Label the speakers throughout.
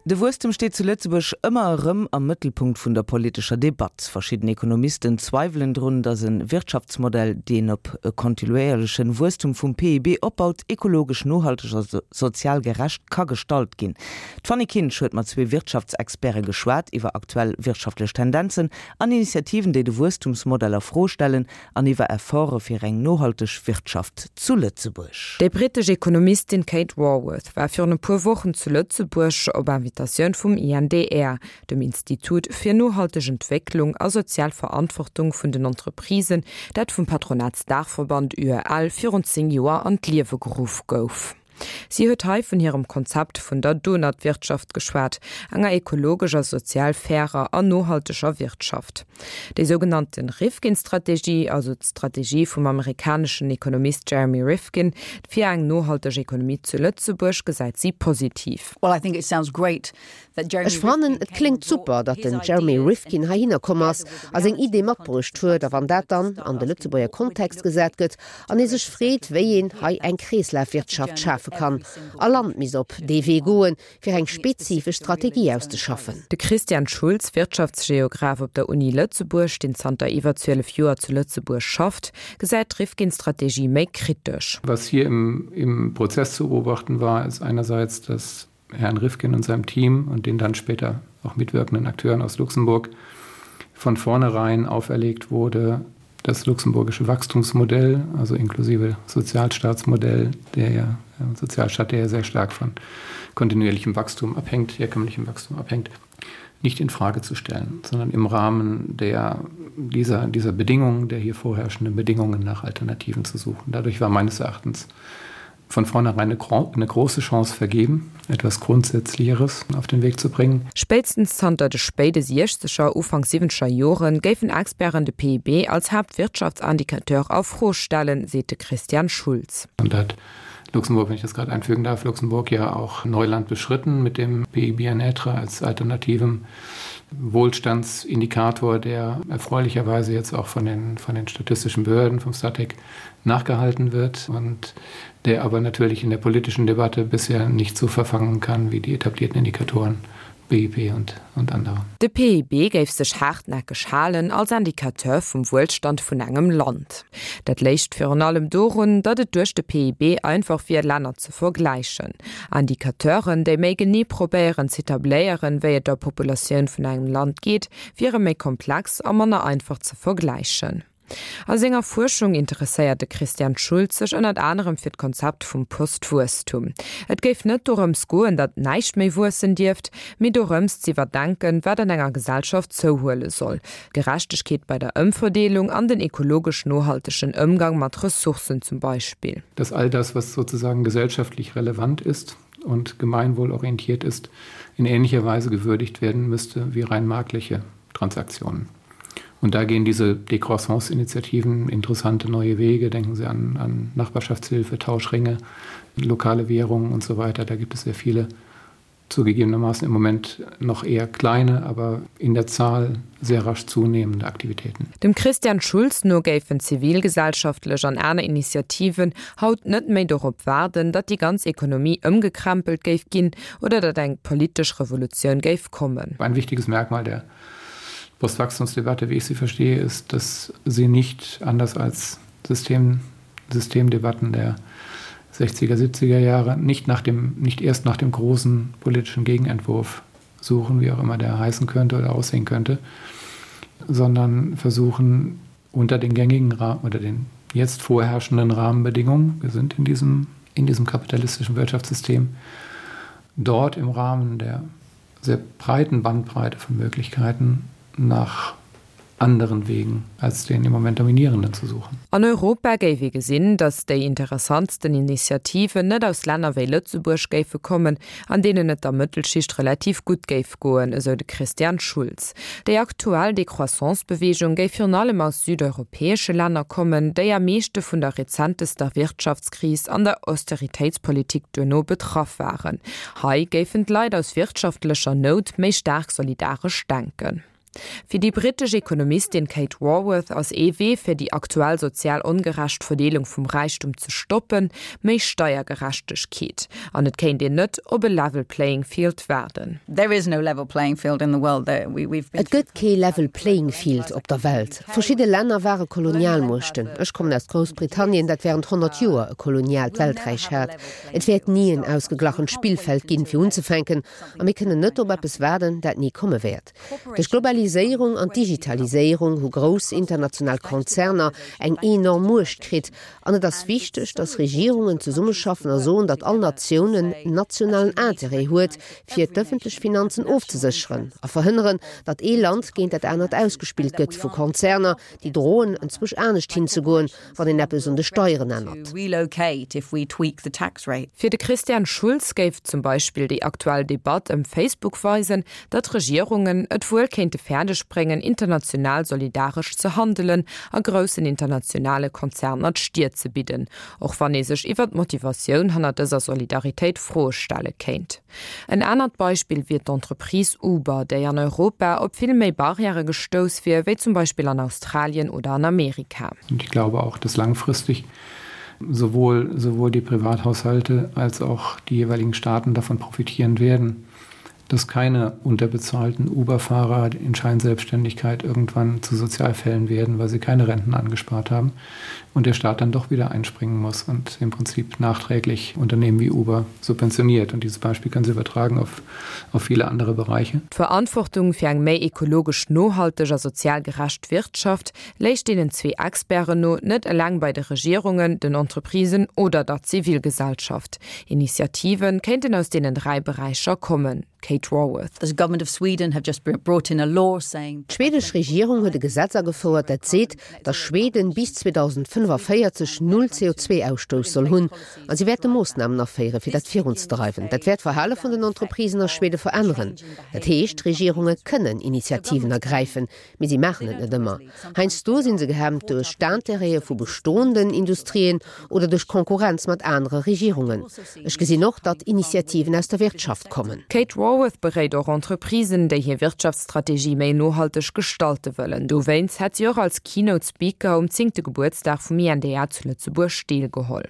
Speaker 1: De Wuesstem steet zu Lëtzebuerg ëmmer erëm am Mëttelpunkt vun der politescher Debatt. Verschidden Ekonomisten zweiwelen drun, datt e Wirtschaftsmodell, deen op e kontinuéierlechen Wuesstum vum PIB opbaut, ekologesch nohalteg a sozial gerecht ka gestalt ginn. D'Fanny Kinsch huet mat zwee Wirtschaftsexperte geschwat iwwer aktuell wirtschaftlech Tendenzen an Initiativen, déi de Wuesstumsmodell a Fro stellen an iwwer Efforte fir eng nohalteg Wirtschaft zu Lëtzebuerg.
Speaker 2: Déi brittesch Ekonomistin Kate Raworth war virun e puer Wochen zu Lëtzebuerg op Invitatioun vum INDR, dem Institut fir nohalteg Entwécklung a sozial Verantwortung vun den Entreprisen, dat vum Patronatsdaachverband UEL virun 10 Joer an d'Liewe geruff gouf. Si huet hei vun hirem Konzept vun der Donut-Wirtschaft geschwat, enger ekologesch a sozial fairer an nohalteger Wirtschaft. Déi sougenannte Rifkin-Strategie, also d'Strategie vum amerikaneschen Ekonomist Jeremy Rifkin fir eng nohalteg Ekonomie zu Lëtzebuerg, gesäit si positiv.
Speaker 3: Ech fannen, et kléngt super, datt den Jeremy Rifkin heihinner komm ass a seng Idee matbruecht huet. A wann dat dann an de Lëtzebuerger Kontext gesat gëtt an ee sech freet, wéi een hei eng Kreeslafwirtschaft schafe kann, all Land misst op dee Wee goen, fir eng spezifesch Strategie auszeschaffen.
Speaker 2: De Christian Schulz, Wirtschaftsgeograph op der Uni Lëtzebuerg, deen zanter iwwer 12 Joer zu Lëtzebuerg schafft, gesäit d'Rifkin-Strategie méi kritesch.
Speaker 4: Was hier im, im Prozess zu beobachten war, ist einerseits, dass Herrn Rifkin und seinem Team und den dann später auch mitwirkenden Akteuren aus Luxemburg von vornherein auferlegt wurde, das luxemburgische Wachstumsmodell, also inklusive Sozialstaatsmodell, der ja äh, Sozialstaat, der ja sehr stark von kontinuierlichem Wachstum abhängt, herkömmlichem Wachstum abhängt, nicht in Frage zu stellen, sondern im Rahmen der, dieser, dieser Bedingungen, der hier vorherrschenden Bedingungen nach Alternativen zu suchen. Dadurch war meines Erachtens von vornherein eine, eine große Chance vergeben, etwas Grundsätzlicheres auf den Weg zu bringen.
Speaker 2: Spéitstens zanter de spéide siechzeger, Ufank siwwenzeger Jore géifen Experten de PIB als Haaptwirtschaftsindicateur a Fro stellen, seet de Christian Schulz.
Speaker 4: Und da hat Luxemburg, wenn ich das gerade einfügen darf, Luxemburg ja auch Neuland beschritten mit dem PIB en être als alternativem Wohlstandsindikator, der erfreulicherweise jetzt auch von den, von den statistischen Behörden vom Statec nachgehalten wird und der aber natürlich in der politischen Debatte bisher nicht so verfangen kann wie die etablierten Indikatoren BIP und, und andere.
Speaker 2: De PIB géif sech haartnäckeg halen als Indicateur vum Wuelstand vun engem Land. Dat léicht virun allem dorun, datt et duerch de PIB einfach wier, Länner ze vergläichen. Indicateuren, déi méi genee probéieren z'etabléieren, wéi et der Populatioun vun engem Land geet, wiere méi komplex a manner einfach ze vergläichen. A senger Fuerschung interesséiert de Christian Schulz sech ënnert anerem fir d'Konzept vum Postwuesstum. Et géif net dorëms goen, datt näischt méi wuessen dierft, mee dorëms z'iwwerdenken, wat an enger Gesellschaft zouhuele soll, Gerechtegkeet bei der Ëmverdeelung an den ekologesch nohaltegen Ëmgang mat Ressourcen zum Beispill.
Speaker 4: Dass all das, was sozusagen gesellschaftlich relevant ist und gemeinwohlorientiert ist, in ähnlicher Weise gewürdigt werden müsste wie rein marktliche Transaktionen. Und da gehen diese Decroissance-Initiativen interessante neue Wege. Denken Sie an, an Nachbarschaftshilfe, Tauschringe, lokale Währungen und so weiter. Da gibt es sehr viele zugegebenermaßen im Moment noch eher kleine, aber in der Zahl sehr rasch zunehmende Aktivitäten.
Speaker 2: Dem Christian Schulz no géifen zivilgesellschaftlech an aner Initiativen haut net méi dorop waarden, datt déi ganz Ekonomie ëmgekrempelt géif ginn oder datt eng politesch Revolutioun géif kommen.
Speaker 4: Ein wichtiges Merkmal der Postwachstumsdebatte, wie ich sie verstehe, ist, dass sie nicht anders als System, Systemdebatten der 60er, 70er Jahre nicht, nach dem, nicht erst nach dem großen politischen Gegenentwurf suchen, wie auch immer der heißen könnte oder aussehen könnte, sondern versuchen unter den gängigen Rahmen oder den jetzt vorherrschenden Rahmenbedingungen, wir sind in diesem, in diesem kapitalistischen Wirtschaftssystem, dort im Rahmen der sehr breiten Bandbreite von Möglichkeiten nach anderen Wegen als den im Moment dominierenden zu suchen.
Speaker 2: An Europa géif ee gesinn, datt déi interessantsten Initiativen net aus Länner wéi Lëtzebuerg géife kommen, an deenen et der Mëttelschicht relativ gutt géif goen, esou de Christian Schulz. Déi aktuell Décroissance-Beweegung géif virun allem aus südeuropäesche Länner kommen, déi am meeschte vun der rezentester Wirtschaftskris an der Austeritéitspolitik duerno betraff waren. Hei géifen d'Leit aus wirtschaftlecher Nout méi staark solidaresch denken. Fir déi brittesch Ekonomistin Kate Raworth ass ee Wee, fir déi aktuell sozial ongerecht Verdeelung vum Räichtum ze stoppen, méi Steiergerechtegkeet. An et kéint een net op e level playing field waarden.
Speaker 3: Et gëtt kee level playing field op der Welt. Verschidde Länner ware Kolonialmuechten. Ech kommen aus Groussbritannien, dat wärend 100 Joer e koloniaalt Welträich hat. Et wäert ni en ausgeglachent Spillfeld ginn, fir unzefänken. A mir kënnen net op eppes waarden, dat ni komme wäert. Duerch d'Globaliséierung an d'Digitaliséierung hu grouss international Konzerner eng enorm Muecht kritt. An et ass wichteg, datt Regierungen zesummeschaffen a soen, datt all Natioun en nationalen Interêt huet, fir d'ëffentlech Finanzen ofzesécheren a verhënneren, datt ee Land géint dat anert ausgespillt gëtt vu Konzerner, déi droen, enzwousch anescht hinzegoen, wann een eppes un de Steieren ännert.
Speaker 2: Fir de Christian Schulz géif zum Beispill déi aktuell Debatt ëm Facebook weisen, datt Regierungen et wuel kéinte fäerdeg bréngen, international solidaresch ze handelen a groussen internationale Konzerner d'Stier ze bidden, och wann ee sech iwwer d'Motivatioun hanner dëser Solidaritéit Froe stelle kéint. En anert Beispill wier d'Entreprise Uber, déi an Europa op vill méi Barrièrë gestouss wier, wéi zum Beispill an Australien oder an Amerika.
Speaker 4: Und ich glaube auch, dass langfristig sowohl sowohl die Privathaushalte als auch die jeweiligen Staaten davon profitieren werden, dass keine unterbezahlten Uberfahrer in Scheinselbstständigkeit irgendwann zu Sozialfällen werden, weil sie keine Renten angespart haben und der Staat dann doch wieder einspringen muss und im Prinzip nachträglich Unternehmen wie Uber subventioniert. Und dieses Beispiel können Sie übertragen auf, auf viele andere Bereiche.
Speaker 2: D'Verantwortung fir eng méi ekologesch nohalteg a sozial gerecht Wirtschaft léich deenen zwee Experten no net eleng bei de Regierungen, den Entreprisen oder der Zivilgesellschaft. Initiative kéinten aus deenen 3 Beräicher kommen. Kate Raworth.
Speaker 3: D'schwedesch Regierung huet e Gesetz agefouert, dat seet, datt Schweden bis 2045 null CO2-Ausstouss soll hunn. A si wäerte Moossnamen aféieren, fir dat virunzedreiwen. Dat wäert d'Verhale vun den Entreprisen a Schwede veränneren. Dat heescht, Regierunge kënnen Initiativen ergräifen, Mee si maachen et net ëmmer. Heiansdo si se gehemmt duerch d'Intérêtë vu bestoenden Industrien oder duerch Konkurrenz mat anere Regierungen. Ech gesinn och, datt Initiativen aus der Wirtschaft kommen.
Speaker 2: D'Kate Raworth beréit och Entreprisen, déi hir Wirtschaftsstrategie méi nohalteg gestalte wëllen. Dowéinst hätt si och als Keynote Speaker um zéngte Gebuertsdag vum INDA zu Lëtzebuerg deelgeholl.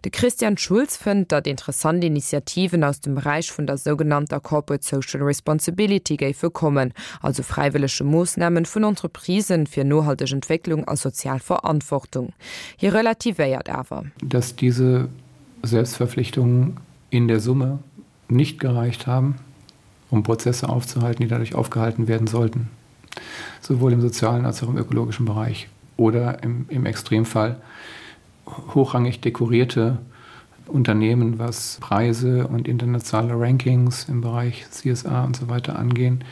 Speaker 2: De Christian Schulz fënnt, datt interessant Initiativen aus dem Beräich vun der sougenannter Corporate Social Responsibility géife kommen, also fräiwëllege Moossnamen vun Entreprisen fir nohalteg Entwécklung a sozial Verantwortung. Hie relativéiert awer.
Speaker 4: Dass diese Selbstverpflichtungen in der Summe nicht gereicht haben, um Prozesse aufzuhalten, die dadurch aufgehalten werden sollten, sowohl im sozialen als auch im ökologischen Bereich oder im, im Extremfall hochrangig dekorierte Unternehmen, was Preise und internationale Rankings im Bereich CSA und so weiter angehen,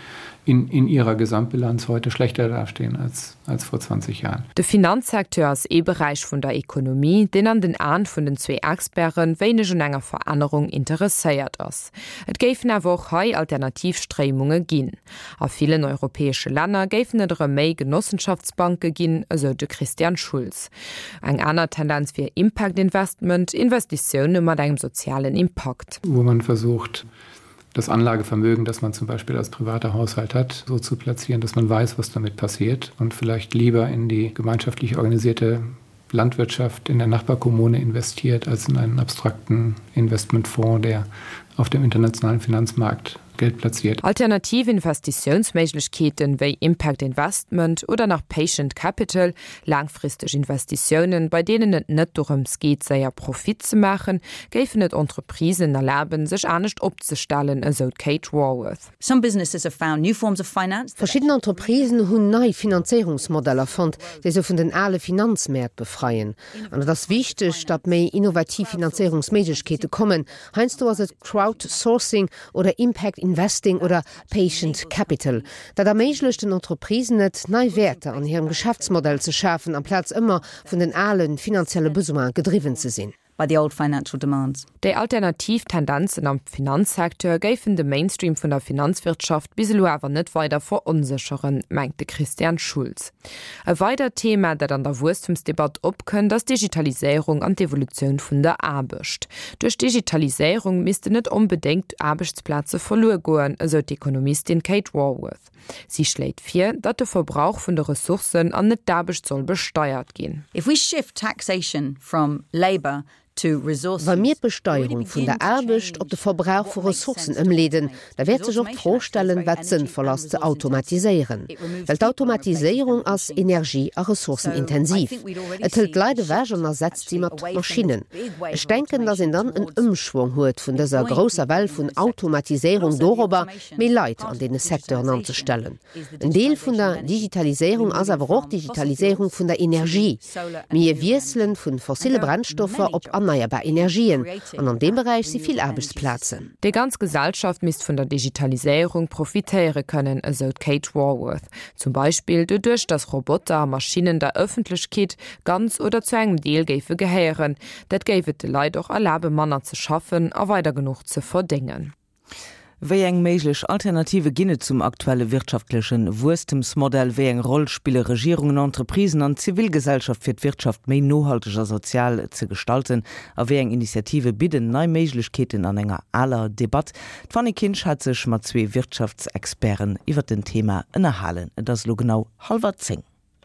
Speaker 4: in, in ihrer Gesamtbilanz heute schlechter dastehen als, als vor 20 Jahren.
Speaker 2: De Finanzsecteur ass ee Beräich vun der Ekonomie, deen an den Aen vun den zwee Experte wéineg un enger Verännerung interesséiert ass. Et géifen awer och hei alternativ Stréimunge ginn. A villen europäesche Länner géifen et erëm méi Genossenschaftsbanke ginn, esou de Christian Schulz. Eng aner Tendenz wier Impact Investment, Investitioune mat engem sozialen Impakt.
Speaker 4: Wo man versucht, das Anlagevermögen, das man zum Beispiel als privater Haushalt hat, so zu platzieren, dass man weiß, was damit passiert und vielleicht lieber in die gemeinschaftlich organisierte Landwirtschaft in der Nachbarkommune investiert als in einen abstrakten Investmentfonds, der auf dem internationalen Finanzmarkt Geld platziert.
Speaker 2: Alternativ Investitiounsméiglechkeeten wéi Impact Investment oder nach Patient Capital, laangfristeg Investitiounen, bei deenen et net dorëms geet, séier Profit ze maachen, géifen et Entreprisen erlaben, sech anescht opzestellen, esou d'Kate Raworth.
Speaker 3: Verschidden Entreprisen hunn nei Finanzéierungsmodeller fonnt, déi se vun den ale Finanzmäert befreien. An et ass wichteg, datt méi innovativ Finanzéierungsméiglechkeete kommen. Heiansdo ass et Crowdsourcing oder Impact Investing oder Patient Capital. Dat erméiglecht den Entreprisen et, nei Wäerter an hirem Geschäftsmodell ze schafen, amplaz ëmmer vun den ale finanzielle Besoine gedriwwen ze sinn.
Speaker 5: by the old financial demands.
Speaker 2: Déi alternativ Tendenzen am Finanzsecteur géifen de Mainstream vun der Finanzwirtschaft bis elo awer net weider veronsécheren, mengt de Christian Schulz. E weidert Thema, dat an der Wuesstemsdebatt opkënnt, ass d'Digitaliséierung an d'Evolutioun vun der Aarbecht. Duerch d'Digitaliséierung missten net onbedéngt Aarbechtsplaze verluer goen, esou d'Ekonomistin Kate Raworth. Si schléit vir, datt de Verbrauch vun de Ressourcen an net d'Aarbecht soll besteiert ginn.
Speaker 5: If we shift taxation from labour to resource
Speaker 3: Wa mir
Speaker 5: use,
Speaker 3: d'Besteierung vun der Aarbecht op de Verbrauch vu Ressourcen ëmleeden, da wäert sech och d'Fro stellen, wat sënnvoll ass ze automatiséieren. Well d'Automatiséierung ass energie a ressourcenintensiv. Et hëlt d'Leit ewech an ersetzt si mat Maschinnen. Ech denken, datt een dann en Ëmschwong huet vun dëser grousser Well vun Automatiséierung dorobber, méi Leit an deene Secteuren anzestellen. En Deel vun der Digitaliséierung ass awer och d'Digitaliséierung vun der Energie. Mir wiesselen vu fossille Brennstoffer op erneierbar Energien an an deem Beräich si vill Aarbechtsplazen.
Speaker 2: Déi ganz Gesellschaft misst vun der Digitaliséierung profitéiere kënnen, esou d'Kate Raworth. Zum Beispill doduerch, datt Roboter a Maschinnen der Ëffentlechkeet ganz oder zu engem Deel géife gehéieren. Dat géif et de Leit och erlabe manner ze schaffen a weider genuch ze verdéngen.
Speaker 1: Wéi eng méiglech Alternative ginn et zum aktuelle wirtschaftleche Wuesstemsmodell? Wéi eng Roll spille Regierungen, Entreprisen an d'Zivilgesellschaft fir d'Wirtschaft méi nohalteg a sozial ze gestalten? A wéi eng Initiative bidden nei Méiglechkeeten an enger aler Debatt? D'Fanny Kinsch hat sech mat zwee Wirtschaftsexperten iwwer den Thema ënnerhalen. Et ass elo genau hallwer 10.